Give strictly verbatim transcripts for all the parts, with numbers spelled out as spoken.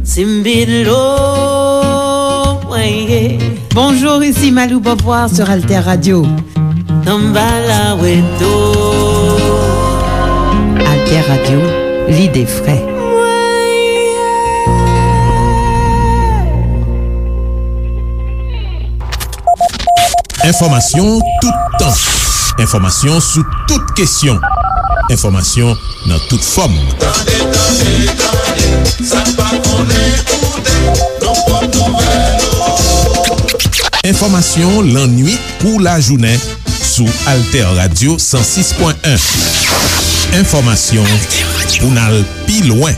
Simbilo, mwen ye. Bonjour, ici Malou Beauvoir sur Alter Radio. Samba la weto. Alter Radio, l'idée frais. Enfòmasyon toutan. Enfòmasyon sou tout kesyon. Enfòmasyon nan tout fòm. Tande, tande, tande, sa n pa konnen koute, nan pòt nouvèl. Enfòmasyon lannwit kou lajounen sou Alter Radio san sis pwen en. Enfòmasyon pou n al pi lwen.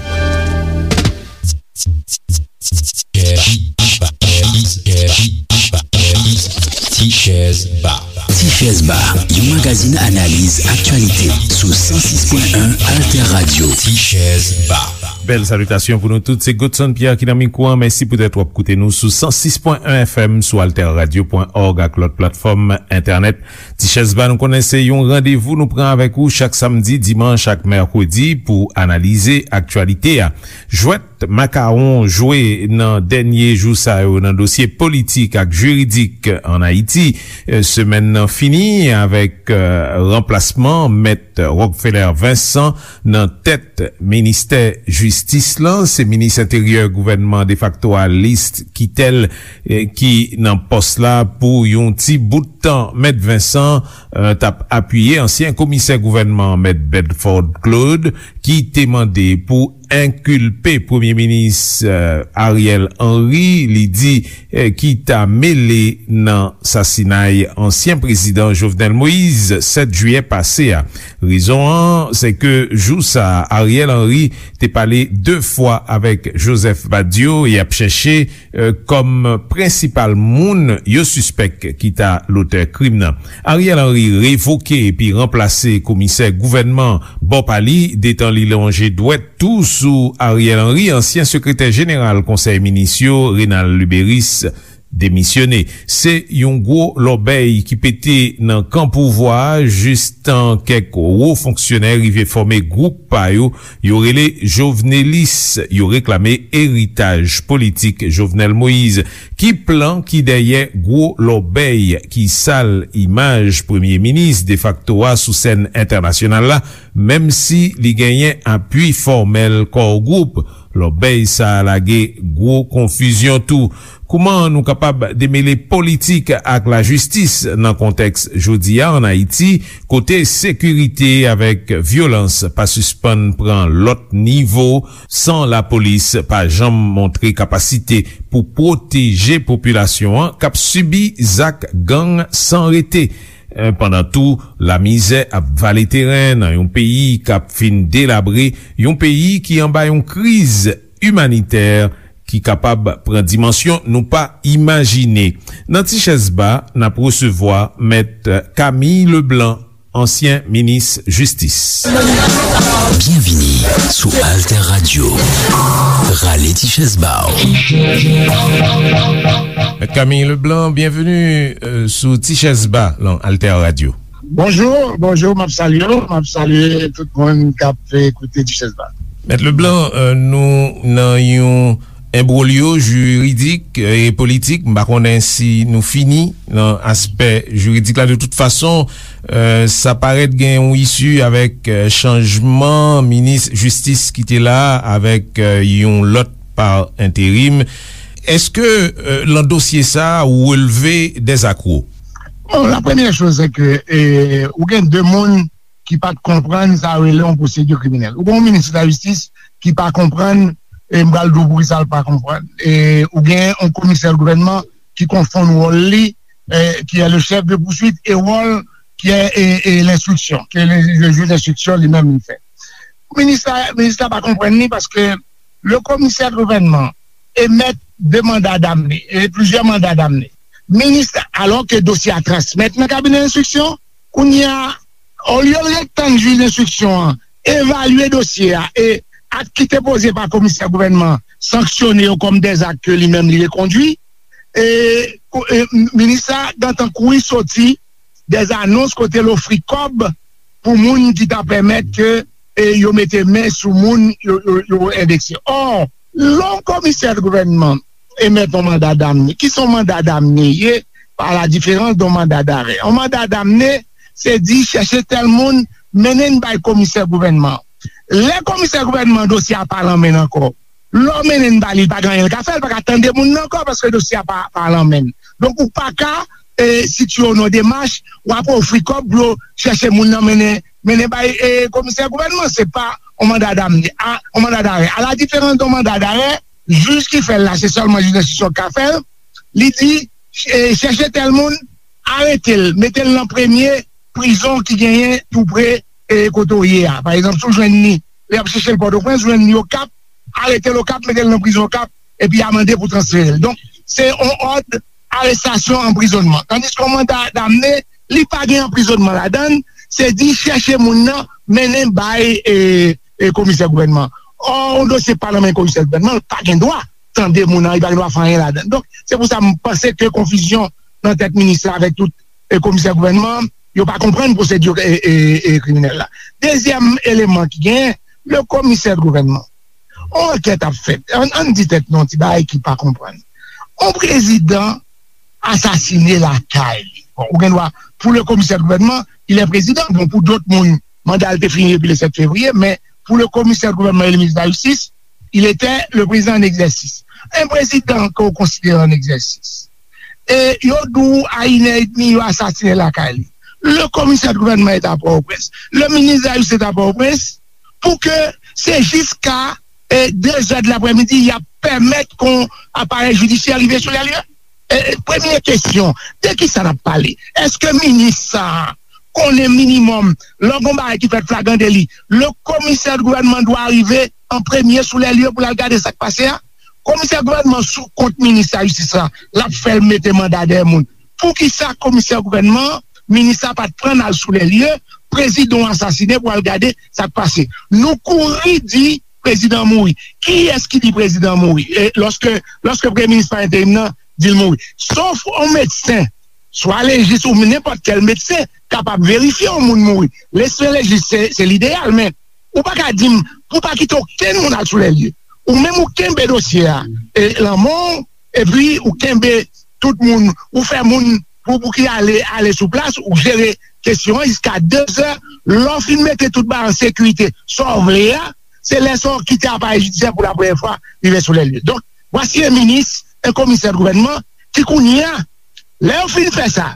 Ti Chèz Ba. Ti Chèz Ba, yon magazin analiz aktyalite sou san sis pwen en Alter Radio. Ti Chèz Ba. Bèl salitasyon pou nou tout. Se Godson Pierre ki nan mikwo a. Mèsi poutèt w ap koute nou sou san sis pwen en F M, sou alter radio pwen org ak lòt platfòm entènèt. Ti Chèz Ba, nou konnen se yon randevou nou pran avèk ou chak samdi, dimanch ak mèkredi pou analize aktyalite a. Jwèt makawon jwe nan dènye jou sa yo nan dosye politik ak jiridik ann Ayiti. Eh, semèn nan fini avèk, eh, ranplasman Mèt Rockefeller Vincent nan tèt ministè jistis lan. Se minis enteryè gouvènman defakto a, List Quitel, eh, ki nan pòs la pou yon ti bout tan. Mèt Vincent, eh, t ap apiye ansyen komisè gouvènman, Mèt Bedford Claude, ki te mande pou enkilpe Premye Minis, eh, Ariel Henry, li di, eh, ki ta mele nan sasinay ansyen prezidan Jovenel Moïse sèt jiyè pase a. Rezon an, se ke jou sa a, Ariel Henry te pale de fwa avèk Joseph Badio, y ap chèche, eh, kòm prensipal moun yo sispèk ki ta lotè krim nan. Ariel Henry revoke epi ranplase komisè gouvènman bò pa li, detan li lonje dwèt tou sou Ariel Henry, ansyen sekretè jeneral Konsèy Minis yo, Renald Luberice, demisyone. Se yon gwo lòbèy ki pete nan kan pouvwa a, jistan kèk wo fonksyonè rive fòme gwoup pa yo, yo rele Jovenelis, yo reklame eritaj politik Jovenel Moïse. Ki plan ki dèyè gwo lòbèy ki sal imaj Premye Minis defakto a sou sèn entènasyonal la, menm si li genyen apui fòmèl Core Group? Lòbèy sa a lage gwo konfizyon tou. Kouman nou kapab demele politik ak lajistis nan kontèks jodi a ann Ayiti, kote sekirite avèk vyolans pa sispann pran lòt nivo, san lapolis pa janm montre kapasite pou pwoteje popilasyon an k ap sibi zak gang san rete? Eh, pandan tou, lamizè ap vale teren nan yon peyi k ap fin delabre, yon peyi ki anba yon kriz imanitè ki kapab pran dimansyon nou pa imajine. Nan Ti Chèz Ba, n ap resevwa Mèt Camille Leblanc, ansyen minis jistis. Byenvini sou Alter Radio. Rale ti chèz ba w. Mèt Camille Leblanc, byenveni, euh, sou Ti Chèz Ba lan Alter Radio. Bonjou, bonjou, m ap salye w, m ap salye tout moun k ap, eh, koute Ti Chèz Ba. Mèt Leblanc, euh, nou nan yon enbwolyo jiridik, eh, e politik. M pa konnen si nou fini nan aspè jiridik la. De tout fason, eh, sa parèt gen yon isi avèk, eh, chanjman minis jistis ki te la, avèk, eh, yon lòt pa enterim. Èske, eh, lan dosye sa a, ou relve dèzakwo? Bon, la première chose, c'est que, eh, ou gen de moun ki pa t konprann sa yo rele yon pwosedi kriminèl. Ou gen yon minis lajistis ki pa konprann, e m pral di w poukisa l pa konprann. E ou gen yon komisè gouvènman ki konfonn wòl li, e, qui est le chef de poursuite, e wòl ki est, e, e, l'instruction, ke le, le juge d'instruction li menm li fè. Minis la, minis la pa konprann li paske le komisè gouvènman emèt de manda damne, e plizyè manda damne. Minis la, alò ke dosye a transmèt nan kabinè enstriksyon, kounye a, olye l ret tann jij enstriksyon an evalye dosye a e ak ki te poze pa komisè gouvènman sanksyone yo kòm dèzak ke li menm li rekondui, e, kou-, e, minis la gentan kouri soti dèzanons kote l ofri kòb pou moun ki ta pèmèt ke e yo mete men sou moun yo, yo, yo endekse. Ò, lè yon komisè gouvènman emèt yon manda damne, ki se yon manda damne ye, pa la diferans de yon manda darè. Yon manda damne, se di chèche tèl moun, mennen l bay komisè gouvènman. Lè komisè gouvènman dosye a pa lan men l ankò, lè w mennen l ba li, li pa gen anyen l ka fè, li pa ka tande moun nan ankò paske dosye a pa, pa lan men l. Donk, ou pa ka e, sitiye w nan demach, w ap ofri kòb pou yo chèche moun nan mennen, mennen bay e, komisè gouvènman. Se pa yon manda damne, a, yon manda darè. A la diferans de yon manda darè, jij ki fè l la, se sèlman jij enstriksyon ki ka fè l. Li di, e, chèche tèl moun, arete l, mete l nan premye prizon ki genyen tou pre e, kote w ye a. Pa egzanp, si w jwenn li, lè y ap chèche l Pòtoprens, jwenn li Okap, arete l Okap, mete l nan prizon Okap, epi amande pou transfere l. Donk, se yon òd arestasyon, anprizònman. Tandiske yon manda damne, li pa gen anprizònman ladan l, se di chèche moun nan, mennen bay e, e, komisè gouvènman. Ò, yon dosye pa nan men komisè gouvènman, li pa gen dwa tande moun nan, li pa gen dwa fè anyen ladan l. Donk, se pou sa m panse ke konfizyon nan tèt minis la avèk tout e, komisè gouvènman, yo pa konprann pwosediri e, e, e, kriminèl la. Dezyèm eleman ki genyen, le komisè gouvènman. Yon ankèt ap fèt. Ann, ann di tèt nou yon ti bagay ki pa konprann. Yon prezidan asasine lakay li. Bon, ou gen dwa, pou le komisè gouvènman, il est président. Bon, pou dòt moun, manda l te fini depi le sèt fevriye, men pou le komisè gouvènman e le minis de la jistis, il était le président en exercice. Un président que vous considérez en exercice. E yo di w a inè edmi, yo asasinen lakay li. Le komisè de gouvènman est à Port-au-Prince. Le ministre de la Justice est à Port-au-Prince. Pou ke se jiska e, de zè de laprèmidi, y ap pèmèt kon aparèy jidisyè rive sou lè lye? E, e, premye kesyon, de ki sa n ap pale? Èske minis sa a konnen minimòm, lè gon bagay ki fèt flagran deli, le komisè de gouvènman dwa rive an premye sou lè lye pou l al gade sa k pase a? Komisè gouvènman sou kont minis la jistis la, l ap fè l mete manda dèyè moun. Poukisa komisè gouvènman, minis la pa t pran n al sou lè lye, prezidan w asasinen pou al gade sa k pase? Nou kouri di prezidan mouri. Kiyès ki di prezidan mouri? E lòske, lòske premye minis pa enterim nan di l mouri. Sof yon medsen, swa lejis ou nenpòt kèl medsen, kapab verifye yon moun mouri. Medsen lejis se, se lideyal, men ou pa ka di m pou pa kite okenn moun al sou lè lye. Ou menm ou kenbe dosye a e, lanmò w, epi ou kenbe tout moun, ou fè moun pou, pou ki ale, ale sou plas, ou jere kesyon an jiska de zè. Lè w fin mete tout bagay an sekirite, sa w vle a, se lè sa w kite aparèy jidisyè pou la premyè fwa rive sou lè lye. Donk, vwasi en minis, en komisè de gouvènman ki kounye a, lè yo fin fè sa,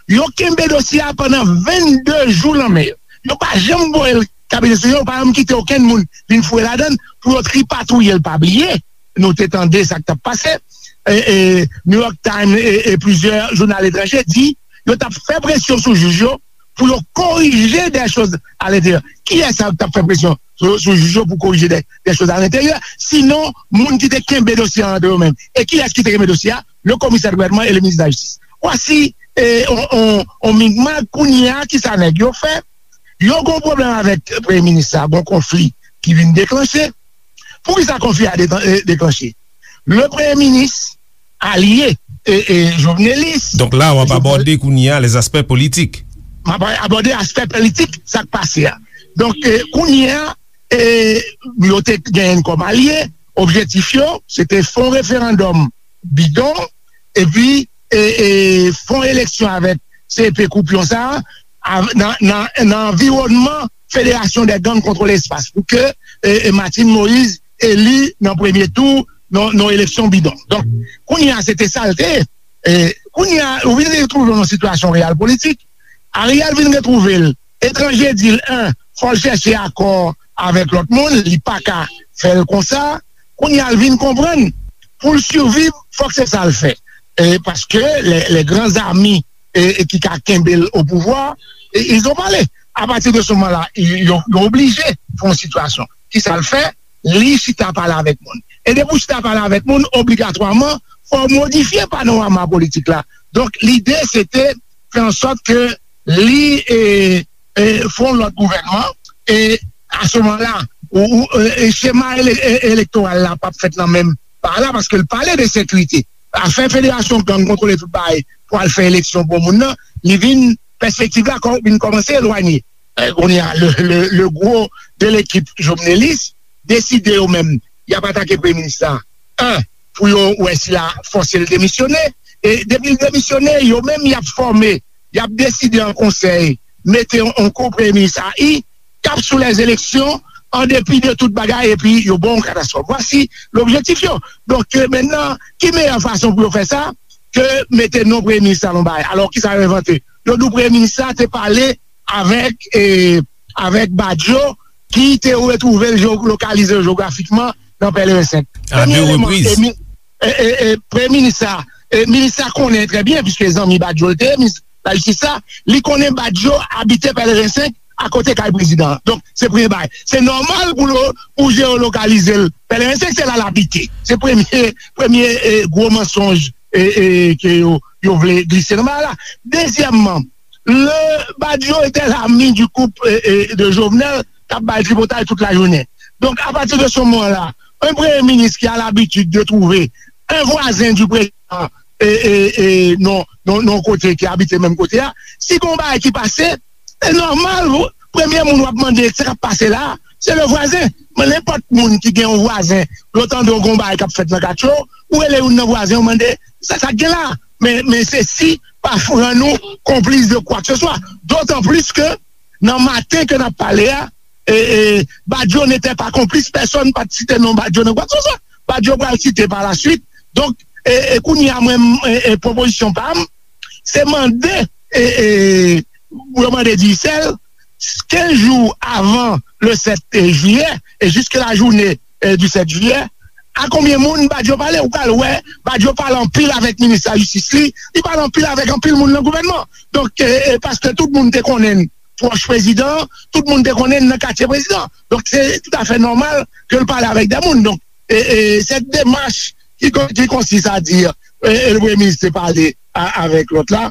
yo kenbe dosye a pandan vennde jou nan men yo. Yo pa janm voye l kabinetrisyon, yo pa janm kite okenn moun vin fouye ladan l pou yo tripatouye l. Pa bliye, nou te tande sa k t ap pase. E, e, New York Times e, e plizyè jounal etranje di yo t ap fè presyon sou jij yo pou yo korije des choses à l'intérieur. Kiyès sa k t ap fè presyon sou, sou jij yo pou korije des, des choses à l'intérieur? Sinon, moun ki te kenbe dosye a antre yo menm. E kiyès ki te kenbe dosye a? Le komisè de gouvènman e le minis de la jistis. Vwasi e, on, on, on migmak. Kounye a, ki sa nèg yo fè? Yo gon pwoblèm avèk premye minis la, gon konfli ki vin deklanche. Poukisa konfli a de-, e, deklanche? Le premye minis alye e, e, Jovenelis. Donk la, w ap abòde kounye a les aspects politiques. M ap abòde aspè politik, sa k pase a. Donk, e, kounye a, e, yo te genyen kòm alye, objektif yo, se te fè yon referandòm bidon, epi e, e, fè yon eleksyon avèk C P koupyon sa a, nan, nan, nan anviwònman Fédération des Gangs contre l'Espace, pou ke e, e, Martine Moïse eli nan premye tou nan, nan eleksyon bidon. Donk, kounye a, se te sa l te ye. E, kounye a, ou vin retwouve w nan sitiyasyon reyal politik. Ariel vin retwouve l etranje, di l, en, fò l chèche akò avèk lòt moun, li pa ka fè l konsa. Kounye a, l vin konprann pou l siviv, fòk se sa l fè. E, paske les, les grands amis e, e ki ka kenbe l o pouvwa, e, ils ont parlé. A pati de se moman la, yo, yo oblije fè yon sitiyasyon. Kisa l fè? Li chita pale avèk moun. E depi w chita pale avèk moun, obligatwaman, fò w modifye panorama politik la. Donk, lide, se te fè an sòt ke li e, e, fè yon lòt gouvènman, e a se moman la, ou, ou, e, e, chema ele-, e, elektoral la p ap fèt nan menm pa la, paske l pale de sekirite. Afè federasyon gang kontwole tout bagay pou al fè eleksyon pou moun nan, li vin, pèspektiv la kò-, vin kòmanse elwanye. eh, kounye a, le, le, le gwo de lekip jovnelis, deside yo menm, y ap atake premye minis la. An, pou yo wè si l a fòse l demisyone. E depi l demisyone, yo menm y ap fòme, y ap deside an konsèy, mete yon, yon ko premye minis a i, k ap sou lèzeleksyon, an depi de tout bagay, epi yo ba w yon katastwòf. Vwasi lobjektif yo. Donk, eh, mentnan, ki meyè fason pou yo fè sa ke mete non premye minis la nan yon bagay? Alò, kisa yo envante? Yo di w premye minis la te pale avèk, eh, avèk Badio, ki te retwouve l, lokalize l jewografikman nan Pèleren senk. A de repriz. Premye eleman, eh, mi-, eh, eh, eh, premye minis la, eh, minis la konnen trè byen, piske zanmi Badio l te ye, minis lajistis la, li konnen Badio abite Pèleren senk, akote kay prezidan an. Donk, se premye bagay. Se nòmal pou lo-, pou jeolokalize l. Pèleren senk, se la l abite. Se premye, premye, eh, gwo mansonj, eh, eh, ke yo, yo vle glise nan bagay la. Dezyèmman, le Badio était l'ami du couple, eh, eh, de Jovenel, k ap bay tripotay tout lajounen. Donk, apati de se moman la, un premye minis ki a labitid de twouve un vwazen di prezidan, eh, eh, eh, non, non, non, kote ki abite menm kote a, si gon bagay ki pase, se nòmal, premye moun w ap mande sa k ap pase la, se le vwazen. Men nenpòt moun ki gen yon vwazen, lè w tande yon bagay k ap fèt nan katye w, ou rele youn nan vwazen, ou mande, sa, sa k gen la? Men, men sesi pa rann ou konplis de kwa ke se swa. Dotan plis ke nan maten ke n ap pale a, e, e, Badio n'était pas complice, pèsonn pa t site non Badio nan kwa ke se swa. Badio pral site pa la swit. Donk, e, e kounye a, mwen, e, e, pwopozisyon pa m, se mande, e, e, pou yo mande Digicel, kenz jou avan le sèt jiyè, e jiske la jounen, e, di sèt jiyè, a konbyen moun Badio pale? Ou pral wè, Badio pale anpil avèk minis lajistis li, li pale anpil avèk anpil moun nan gouvènman. Donk, e, e, paske tout moun te konnen l pwòch prezidan, tout moun te konnen l nan katye prezidan. Donk, se toutafè nòmal ke l pale avèk de moun. Donk, e, e, cette démarche qui, qui consiste à dire, e, e, le premye minis te pale a, avèk lòt la.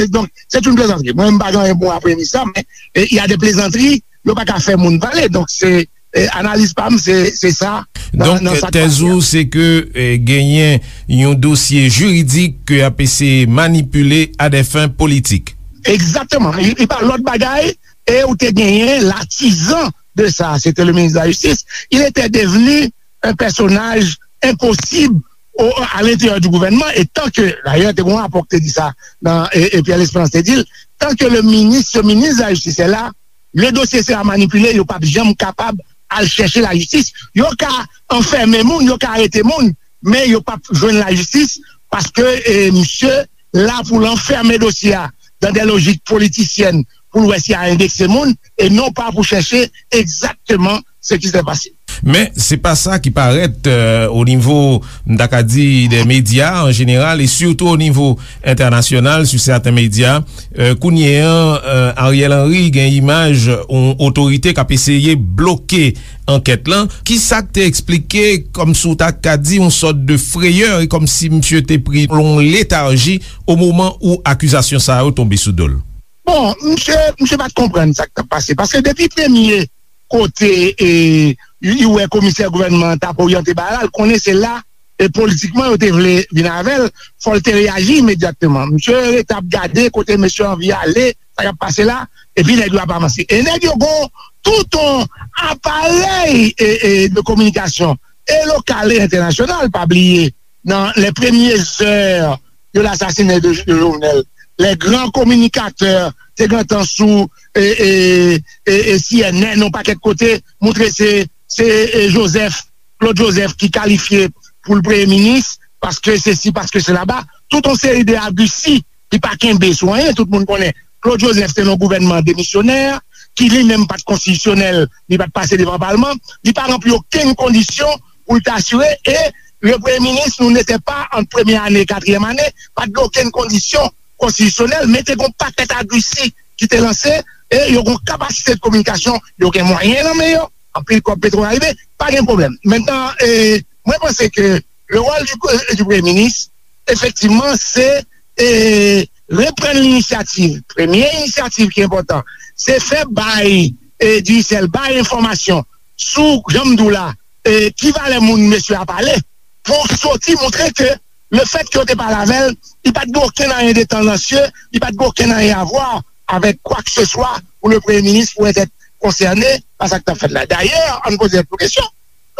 Donk, c'est une plaisanterie. Mwen, m pa gen anyen pou mwen a premye minis la, men, e, il y a des plaisanteries, yo pa ka fè moun pale. Donk, se, e, analiz pa m, se, se sa. Nan, donk, nan sa k tèz pase a. Ou, se ke, e, genyen yon dosye jiridik ke y ap eseye manipile à des fins politiques. Egzakteman. E, e pa lòt bagay, e ou te genyen l'artisan de ça, c'était le ministre de la Justice. Il était devenu un personnage impossible au, à l'intérieur du gouvernement, et tant que, d'ailleurs, te gon rapò ki te di sa, nan, e, e Pierre Lespérance te di l, tant que le ministre, ce ministre de la Justice est là, le dossier sera manipulé, yo p ap janm kapab al chèche lajistis. Yo ka anfèmen moun, yo ka arete moun, men yo p ap jwenn lajistis, paske, e, misye la pou l anfèmen dosye a dans des logiques politiciennes, pou l wè si a endekse moun, e non pa pou chèche egzakteman ce qui s'est passé. Men, se pa sa ki parèt, euh, o nivo, m ta ka di, dè medya an jeneral, e sitou o nivo entènasyonal, sou sèten medya. Euh, kounye an, euh, Ariel Henry gen imaj yon otorite k ap eseye bloke ankèt lan. Ki sa k te eksplike, kòmsi w ta ka di, yon sòt de freyè, e kòmsi misye te pri yon letarji o moman ou akizasyon sa yo tonbe sou do l? Bon, misye, misye pa t konprann sa k t ap pase. Paske depi premye kote, e, li wè komisè gouvènman an t ap oryante bagay la, l konnen se la, e politikman, yo te vle vin avè l, fò l te reyaji imedyatman. Misye rete ap gade kote mesye anvi ale, sa k ap pase la, epi nèg yo ap avanse. E nèg yo gon tout yon aparèy, e, e, de kominikasyon, e lokal e entènasyonal, pa bliye, dans les premières heures de l'assassinat de, de Jovenel, les grands communicateurs te gentan sou, e, e, e, e, C N N, yon pakèt kote, montre se, se, e, Joseph, Claude Joseph ki kalifye pou l premye minis, paske sesi, paske sela. Tout yon seri de agrisi ki pa kenbe sou anyen, tout moun konnen Claude Joseph te nan yon gouvènman demisyonè, ki li menm pa t konstitisyonèl, li pa t pase devan palman, li pa ranpli okenn kondisyon pou l te asire, e le premye minis, nou n'était pas ant premye ane e katriyèm ane, pa t gen okenn kondisyon konstitisyonèl, men te gen yon pakèt agrisi ki te lanse, e yo gen yon kapasite de kominikasyon, yo gen mwayen nan men yo, anpil kòb petwòl rive, pa gen pwoblèm. Mentnan, e, mwen panse ke le rôle du, du premye minis, efektivman, se, e, reprann linisyativ. Premye inisyativ ki enpòtan, se fè bay, e, Digicel, bay enfòmasyon sou, jan m di w la, e, ki valè moun mesye a pale, pou soti montre ke le fèt ke yo te pale avè l, li pa t gen okenn anyen de tandansye, li pa t gen okenn anyen a vwa avèk kwa ke se swa pour le Premier ministre pourrait être concerné par sa k t ap fèt la. D'ailleurs, ann poze tèt nou kesyon.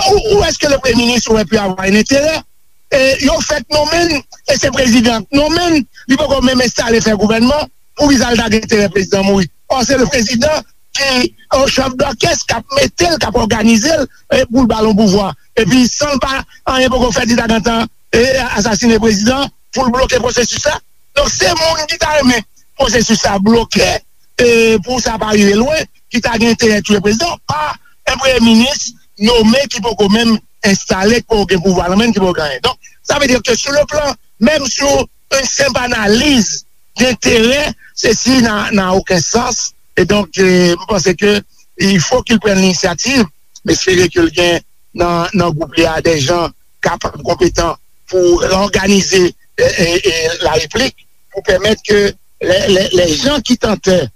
Où, où est-ce que le Premier ministre aurait pu avoir un intérêt? E yo fèk nonmen l, e se prezidan k nonmen l, li poko menm enstale fè gouvènman, poukisa l ta gen enterè prezidan mouri? Or, se le prezidan ki an chèf dòkès, k ap mete l, k ap òganize l, e pou l ba l yon pouvwa. Epi, san l pa, anyen poko fèt, li ta gentan, e, asasine prezidan pou l bloke pwosesis la. Donk, se moun ki ta renmen pwosesis la bloke, e, pou sa pa rive lwen, ki ta gen enterè touye prezidan, pa un premye minis nonmen ki poko menm enstale, ki poko gen pouvwa nan men l, ki poko gen anyen. Donk, sa vle di ke sou le plan, menm sou yon senp analiz denterè, sesi n'a, n'a aucun sens. E donk, e, m panse ke il faut qu'il prenne l'initiative, m espere ke l gen nan, nan gwoup li a de jan kapab, konpetan pou reòganize, e, e, e, la replik, pou pèmèt ke les, les, les gens qui tentaient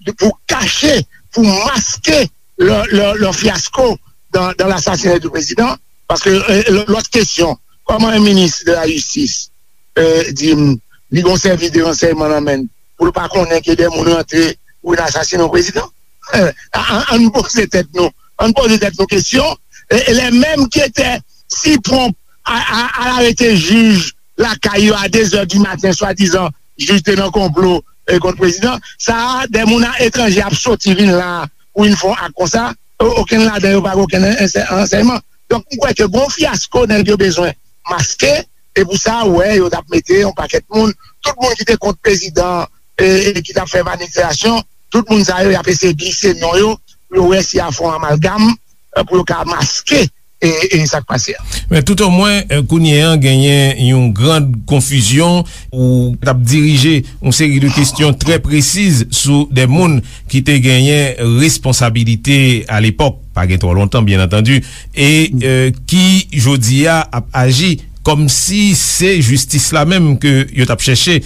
de, pour cacher, pour masquer leur, leur, leur fiasco dans, dans l'assassinat du président. Paske, e, lò-, lòt kesyon, kòman yon minis de la jistis, e, di m, li gon sèvis de ransèyman nan men l, pou l pa konnen ke de moun rantre pou vin asasinen yon prezidan? E, a-, a-, ann poze tèt nou, ann poze tèt nou kesyon, e, e les mêmes qui étaient si prompts à, à, à arrêter jij lakay yo a de zè di maten, swadizan jij te nan konplo, e, kont prezidan. Sa a, de moun a etranje ap soti vin la pou vin fè yon ak konsa. O-, okenn ladan yo pa gen okenn ansè-, ansèyman. Donk, m kwè ke gon fyasko nèg yo bezwen maske, e pou sa, ou wè, yo t ap mete yon pakèt moun, tout moun ki te kont prezidan, e, e ki t ap fè manifestasyon, tout moun sa yo, y ap eseye glise non yo, pou yo wè si y a fè yon amalgam, e, pou yo ka maske, e, e sa k pase a. Men toutomwen, e, kounye a, genyen yon gran konfizyon ou t ap dirije yon seri de kesyon trè presiz sou de moun ki te genyen responsabilite alepòk, pa gen twò lontan, byen antandi, e, e, ki, jodi a, ap aji kòmsi se jistis la menm ke yo t ap chèche.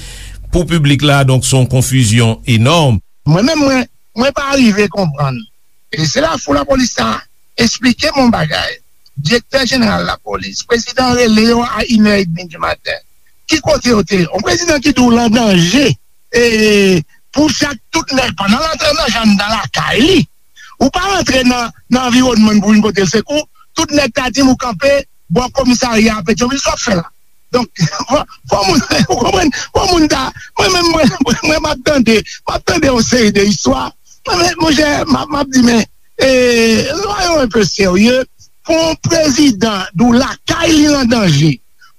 Pou piblik la, donk, se yon konfizyon enòm. Mwen menm, mwen, mwen pa rive konprann. E se la fou lapolis sa esplike m yon bagay. Direktè jeneral lapolis, prezidan rele yo a inè edmi di maten. Ki kote yo te ye? Yon prezidan ki di w l an danje. E pou chak tout nèg, pandan l antre nan janm nan lakay li, ou pa rantre nan, nan anviwònman pou vin pote l sekou, tout nèg ta di m ou kanpe bò komisarya a Petyonvil, sa w ap fè la? Donk, fò, fò moun, ou konprann, fò moun ta, mwen menm, mwen, mwen, mwen, m ap tande, m ap tande yon seri de istwa. Mwen, men, monchè, m ap, m ap di, men, e, soyons un peu sérieux, pou yon prezidan di w lakay li an danje,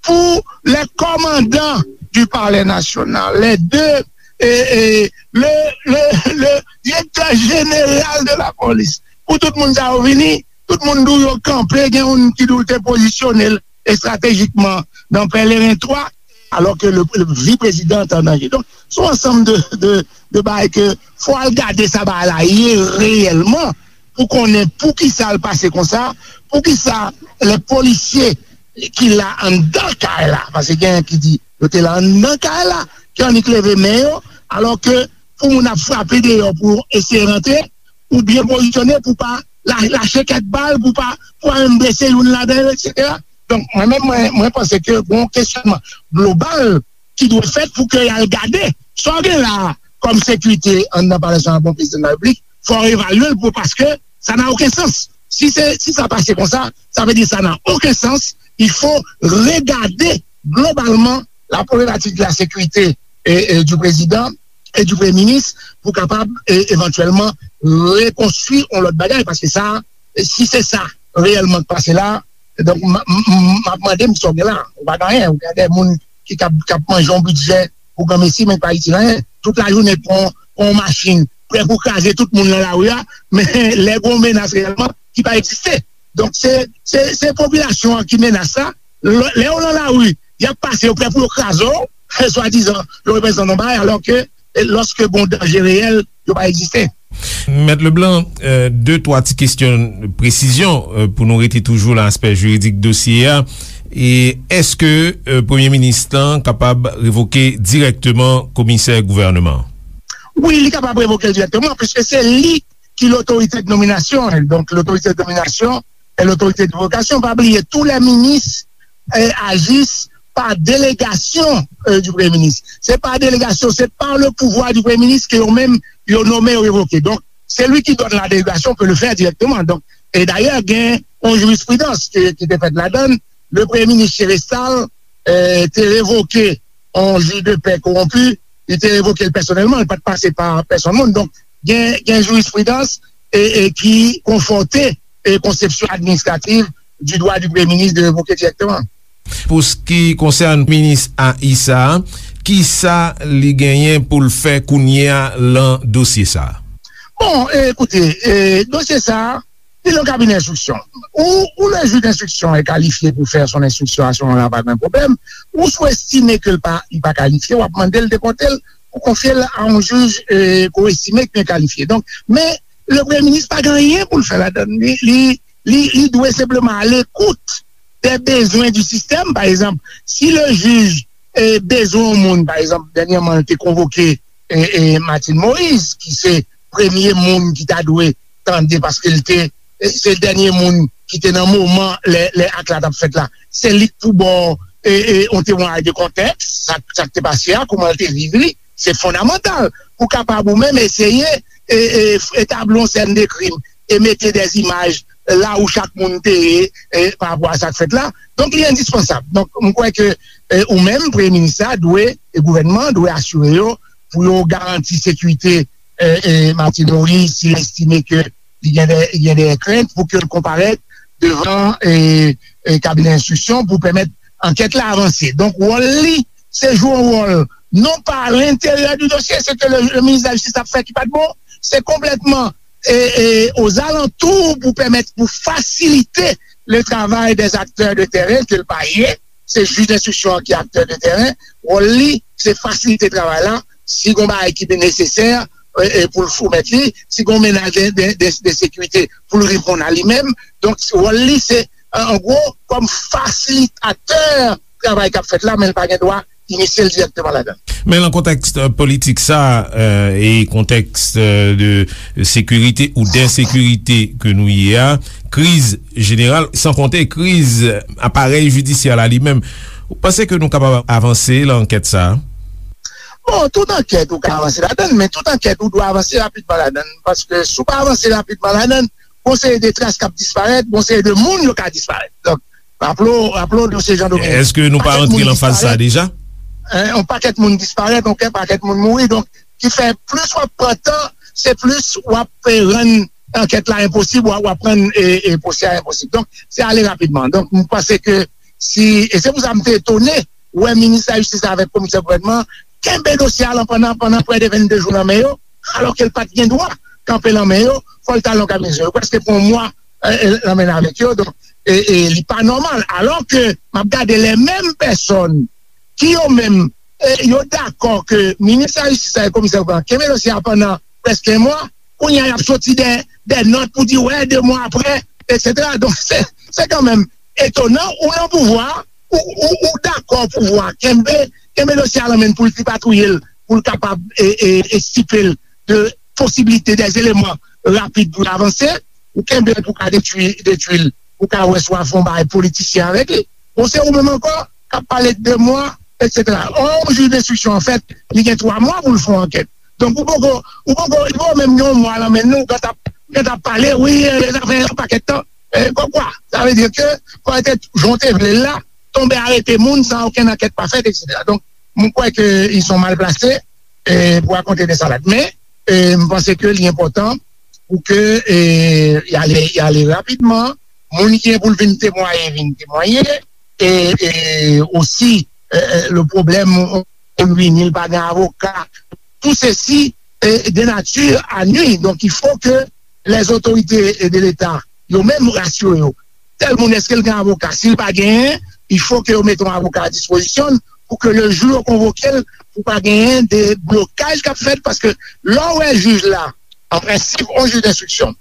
pou les commandants du palais national, les deux, e, e, le, le, le directeur général de la police, pou tout moun sa yo vini, tout moun di w yo kanpe, gen youn ki di w te pozisyone l estratejikman nan Pèleren twa, alò ke le, le vi prezidan an te an danje. Donk, se yon ansanm de, de, de bagay ke fò al gade sa bagay la ye reyèlman pou konnen poukisa l pase konsa, poukisa lè polisye ki la anndan kay la, paske genyen ki di yo te la anndan kay la, ki annik leve men yo, alò ke pou moun ap frape deyò pou eseye rantre, ou byen pozisyone pou pa la-, lache kèk bal, pou pa, pou pa menm blese youn ladan yo, etsetera. Donk, mwen menm, mwen, mwen panse ke gon kesyonman global ki dwe fèt pou ke y al gade sa w gen la a kòm sekirite anndan Palè Nasyonal pou prezidan de la Repiblik, fò w evalye l pou, paske sa n'a aucun sens. Si se, si sa pase konsa, sa vle di sa n'a aucun sens. Il faut regarder globalement la problématique de la sécurité, e, e, du président et du Premier ministre pou kapab, e, evantyèlman rekonstwi yon lòt bagay, paske sa, si se sa reyèlman k pase la, donk, m, m, m, m ap mande m sa w gen la. Ou pa gen anyen, ou gen de moun ki k ap, k ap manje yon bidjè pou granmesi, men k pa itil anyen. Tout lajounen pran, pran yon machin, prè pou kraze tout moun nan lari a, men lè gen yon menas reyèlman ki pa egziste. Donk, se, se, se popilasyon an ki menas sa. Lè, lè yo nan lari, y ap pase, yo prè pou yo kraze w, swadizan, yo reprezante yon bagay, alò ke, e, lòske gen yon danje reyèl, yo pa egziste. Mèt Leblanc, e, de, twa ti kesyon presizyon, e, pou nou rete toujou nan aspè jiridik dosye a. E èske, e, premye minis lan kapab revoke dirèkteman komisè gouvèneman an? Wi, li kapab revoke l dirèkteman, piske se li ki lotorite de nominasyon. Donk, lotorite de nominasyon e lotorite de revokasyon. Pa bliye, tous les ministres, euh, agissent par délégation, euh, du Premier ministre. C'est par délégation, c'est par le pouvoir du Premier ministre que yo menm, yo nonmen, yo revoke. Donk, celui qui donne la délégation peut le faire directement. Donk, e dayè, gen yon jirisprudans ki, ki te fèt ladan l. Le premye minis Chérestal, euh, te revoke yon jij de pè kowonpi, li te revoke l pèsonèlman, li pa t pase pa pèsonn moun. Donk, gen, gen jirisprudans e, e ki konfòte e konsepsyon administrativ du droit du Premier ministre de révoquer directement. Pou s ki konsène minis A I sa a, kisa li genyen pou l fè kounye a lan dosye sa a? Bon, e, koute, e, dosye sa a, li nan kabinè enstriksyon. Ou, ou le juge d'instruction est qualifié pour faire son instruction à ce moment-là, pa gen pwoblèm. Ou si w estime ke l pa, li pa kalifye, w ap mande l depòte l pou konfye l a yon jij, e, ke w estime ki byen kalifye. Donk, men, le premye minis pa gen anyen pou l fè ladan l. Li, li, li, li dwe senpleman alekout des besoins du système. Pa egzanp, si le jij, e, bezwen yon moun, pa egzanp, dènyèman, l te konvoke, e, e, Martine Moïse, ki se premye moun ki ta dwe tande, paske l te, e, se dènye moun ki te nan moman lè, lè ak la t ap fèt la. Se li k pou ba w, e, e, yon temwayaj de kontèks, sa, sa k te pase a, kòman l te viv li, se fondamantal pou kapab ou menm eseye, e, e, etabli yon sèn de krim e mete des images la où chak moun te ye, e, pa rapò a sa k fèt la. Donk, li endispansab. Donk, m kwè ke, e, ou menm, premye minis la dwe, e gouvènman an dwe asire yo pou yo garanti sekirite, e, e, Martine Moïse, si l estime ke li gen de, li gen de krent pou ke l konparèt devan, e, e, kabinè enstriksyon pou pèmèt ankèt la avanse. Donk, wòl li, se jwe yon wòl non pa à l'intérieur du dossier, se ke le, le ministre de la Justice ap fè ki pa t bon, se konplètman, e, e, aux alentours pou pèmèt, pou fasilite le travail des acteurs de terrain ke l pa ye. Se jij enstriksyon an ki aktè de teren. Wòl li, se fasilite travay la. Si gon bagay ki nesesè, e, e, pou l soumèt li, si gon menaj de, de, de, de sekirite, pou l reponn a li menm. Donk, wòl li, se, an, an gwo, kòm fasilitatè travay k ap fèt la, men l pa gen dwa inisye l dirèkteman ladan l. Men nan kontèks, e, politik sa, e, e kontèks, e, de sekirite ou densekirite ke nou ye a, kriz jeneral, san konte kriz aparèy jidisyè la li menm, ou panse ke nou kapab avanse lan ankèt sa a? Bon, tout ankèt ou ka avanse ladan l, men tout ankèt ou dwe avanse rapidman ladan l, paske si w pa avanse rapidman ladan l, gon seri de tras k ap disparèt, gon seri de moun yo ka disparèt. Donk, raple w, raple w de se jan de... Èske nou pa rantre lan faz sa a deja? Yon pakèt moun disparèt, yon pakèt moun mouri. Donk, ki fè plis w ap pran tan, se plis w ap, e, rann ankèt la enposib, w ap, w ap rann, e, e, pwosè a enposib. Donk, se ale rapidman. Donk, m panse ke si, e se pou sa m te etone wè minis lajistis la avèk komisè gouvènman kenbe dosye a lan pandan, pandan prè de vennde jou nan men yo, alòske l pa t gen dwa kanpe lan men yo, fò l t al nan kabinè. Yo prèske pran yon mwa, e, e, lan men avèk yo, donk, e, e, li pa nòmal. Alòske m ap gade lè menm pèsòn ki yo menm, e, yo dakò ke minis lajistis la e komisè gouvènman kenbe dosye a pandan prèske yon mwa, kounye a y ap soti de, de nòt pou di, wè, de mwa aprè, etsetera. Donk, se, se kanmenm etonan, ou nan pouvwa, ou, ou, ou dakò pouvwa kenbe, kenbe dosye a lan men l pou l tripatouye l, pou l kapab, e, e, e stipe l de posibilite, de eleman rapid pou l avanse, ou kenbe l pou ka detwi, detwi l, pou ka wè si w a fè yon bagay politisyen avèk li. Bon, se ou menm ankò k ap pale de mwa, etsetera. Ò, yon jij enstriksyon, anfèt, li gen twa mwa pou l fè yon ankèt. Donk, ou poko, ou poko, li poko menm gen yon mwa lan men nou, ou gentan ap, gentan ap pale, wi, e, sa fè yon pakèt tan. E, kòmkwa, sa vle di ke fò te, jan w te vle l la, tonbe arete moun san okenn ankèt pa fèt, etsetera. Donk, mwen kwè ke ils sont mal placés, e, pou rakonte de salad. Men, e, m panse ke li enpòtan pou ke, e, y ale, y ale rapidman. Moun ki gen pou l vin temwaye, vin temwaye. E, e osi, e, e, le problème, moun vini, li pa gen avoka. Tout ceci est de nature à nuire. Donc, il faut que les autorités de l'État, yo menm, rasire yo. Tèl moun, èske l gen avoka? Si l pa genyen, il faut que yo mete yon avoka a dispozisyon l pou ke le jou yo konvoke l, pou pa genyen de blokaj k ap fèt, paske lè w wè jij la, an prensip, yon jij denstriksyon,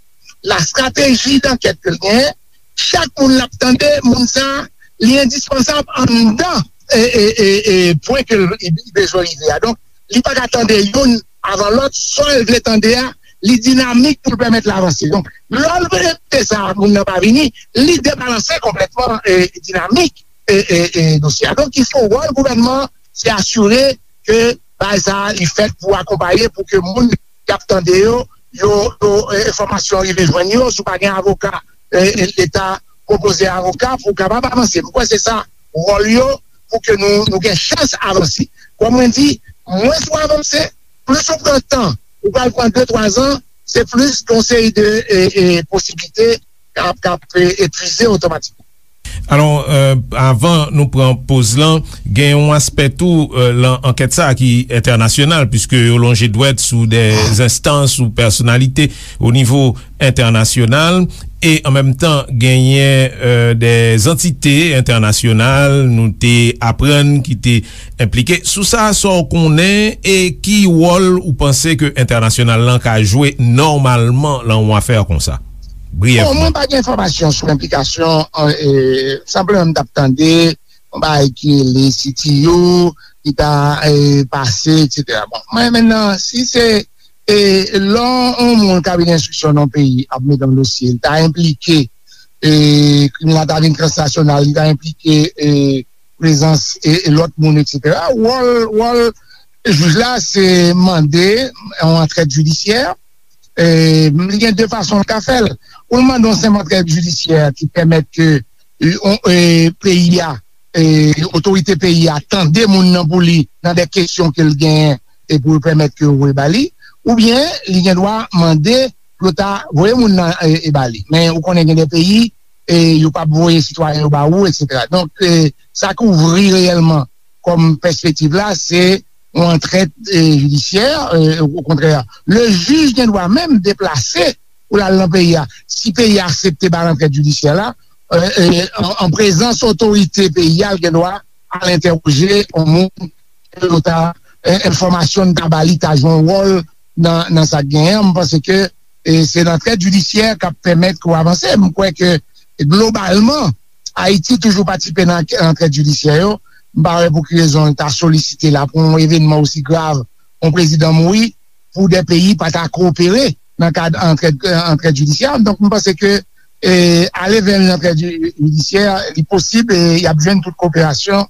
la strateji dankèt ke l genyen, chak moun l ap tande, moun sa a, li endispansab anndan, e, e, e, e, pwen ke l, li bezwen rive a. Donk, li pa ka tande youn avan lòt, sa l vle tande a, li dinamik pou l pèmèt l avanse. Donk, lè l rete sa, moun nan pa vini, li debalanse konplètman, e, dinamik, e, e, e, dosye a. Donk, il faut, wòl gouvènman, se asire ke bagay sa a, li fèt pou akonpaye, pou ke moun k ap tande yo, yo, yo, e, enfòmasyon rive jwenn yo, si w pa gen avoka, e, e, Leta pwopoze avoka pou w kapab avanse. M kwè se sa wòl yo, pou ke nou, nou gen chans avanse. Kòm mwen di, mwens ou avanse, plis ou pran tan, ou pral pran de, twa zan, se plis gen yon seri de, e, e, posiblite k ap, k ap, e, epuize otomatikman. Alò, avan nou pran poz lan, gen yon aspè tou lan ankèt sa a ki entènasyonal, piske yo lonje dwèt sou de enstans ou pèsonalite o nivo entènasyonal, e an menm tan genyen de antite entènasyonal nou te aprann ki te enplike. Sou sa, sa w konnen e ki wòl ou panse ke entènasyonal lan ka jwe nòmalman lan yon afè konsa? Briyèvman. Bon, mwen pa gen enfòmasyon sou enplikasyon, e, senpleman m t ap tande yon bagay ki rele C T U ki ta, e, pase, etsetera. Bon, mwen menm nan, si se, e, lè yon moun kabinè enstriksyon nan yon peyi ap mete yon dosye, li ta enplike, e, krim la ta vin transnasyonal, li ta enplike, e, prezans, e, e, lòt moun, etsetera. Wòl, wòl jij la, se mande yon antrèt jidisyè, e, li gen de fason l ka fè l. Ou l mande yon senp antrèt jidisyè ki pèmèt ke, e, on, e, peyi a, e, otorite peyi a tande moun nan pou li nan de kesyon ke l genyen e pou yo pèmèt ke yo voye ba li, oubyen li gen dwa mande pou yo ta voye moun nan, e, e ba li. Men ou konnen gen de peyi, e, yo p ap voye sitwayen yo ba ou, etsetera. Donk, e, sa k ouvri reyèlman kòm pèspektiv la, se yon antrèt, e, jidisyè, e, okontrè, le jij gen dwa menm deplase pou l al nan peyi a. Si peyi a aksepte ba l antrèt jidisyè la, e, e, an, an prezans otorite peyi a, l gen dwa al entèwoje yon moun ke yo ta, e, enfòmasyon n ta ba li ta jwe yon wòl nan, nan sa k genyen an. M panse ke, e, se antrèt jidisyè k ap pèmèt ke w avanse. M kwè ke, globalman, Ayiti toujou patisipe nan antrèt jidisyè yo. M pa wè pou ki rezon l ta solisite la pou yon evènman osi grav, yon prezidan mouri, pou de peyi pa ta kowopere nan kad antrèt, antrèt jidisyè. Donk, m panse ke, e, ale vè yon antrèt ji-, jidisyè, li posib, e y ap jwenn tout koperasyon,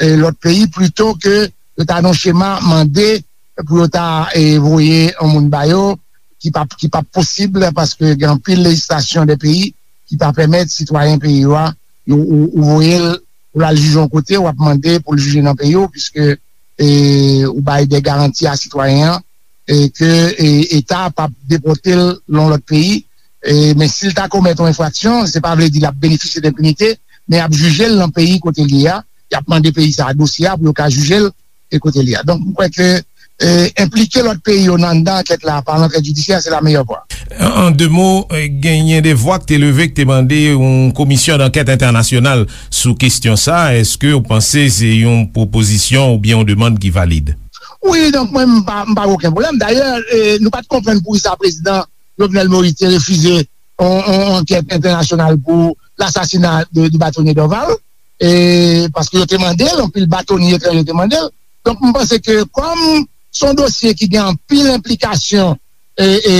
e, lòt peyi, plito ke yo ta nan chema mande pou yo ta, e, voye yon moun ba yo, ki p ap, ki p ap posib, paske gen anpil lejislasyon de peyi ki pa pèmèt sitwayen peyi yo a, yo, ou, ou voye l pou l al jije yon kote, w ap mande pou l jije nan peyi w, piske, e, ou bay de garanti a sitwayen an, e ke, e, Eta p ap depòte l nan yon lòt peyi, e, men si l ta komèt yon enfraksyon, se pa vle di l ap benefisye d enpinite, men y ap jije l nan peyi kote l ye a, y ap mande peyi sa a dosye a pou yo ka jije l e kote l ye a. Donk, m kwè ke, e, enplike lòt peyi yo nan anndan ankèt la pa antrèt jidisyè, se la meyè vwa. An, an de mo, e, genyen de vwa k te leve, k te mande yon komisyon dankèt entènasyonal sou kesyon sa. Èske w panse se yon pwopozisyon oubyen yon demann ki valid? Wi, donk, mwen, m pa, m pa gen okenn pwoblèm. Dayè, e, nou pa t konprann poukisa prezidan Jovenel Moïse te refize yon, yon ankèt entènasyonal pou lasasina de, de batonye Dorval, e, paske yo te mande l, anpil batonye etranjè te mande l. Donk, m panse ke kòm se yon dosye ki gen anpil enplikasyon, e, e,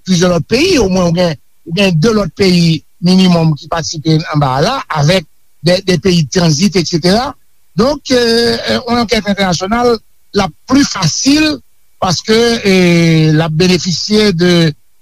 plizyè lòt peyi, omwen ou gen, ou gen de lòt peyi minimòm ki patisipe anba a la, avèk de, de peyi tranzit, etsetera. Donk, e, e, yon ankèt entènasyonal, l ap pli fasil paske, e, l ap benefisye de,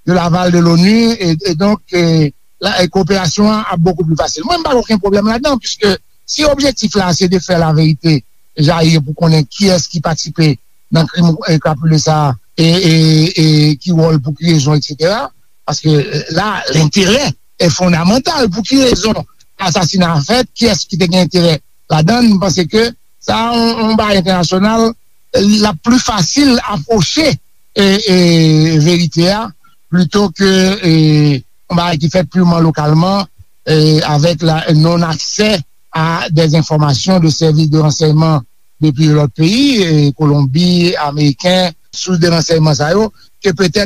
de l'aval de l'ONU, e, e donk, e, la, e, koperasyon an ap bokou pli fasil. Mwen, m pa gen okenn pwoblèm ladan, piske si objektif la se de fè laverite jayi pou konnen kiyès ki patisipe nan krim, e, krapile sa a, e, e, e ki wòl, pou ki rezon, etsetera. Paske, e, la, lenterè e fondamantal. Pou ki rezon asasina a fèt? Kiyès ki te gen enterè ladan l? M panse ke sa a yon, yon bagay entènasyonal, l ap pli fasil apwoche, e, e, verite a, plito ke, e, yon bagay ki fèt pirman lokalman, e, avèk la non aksè a de enfòmasyon de sèvis de ransèyman depi lòt peyi, e, Kolonbi, Ameriken, sous de ransèyman sa yo, ke petèt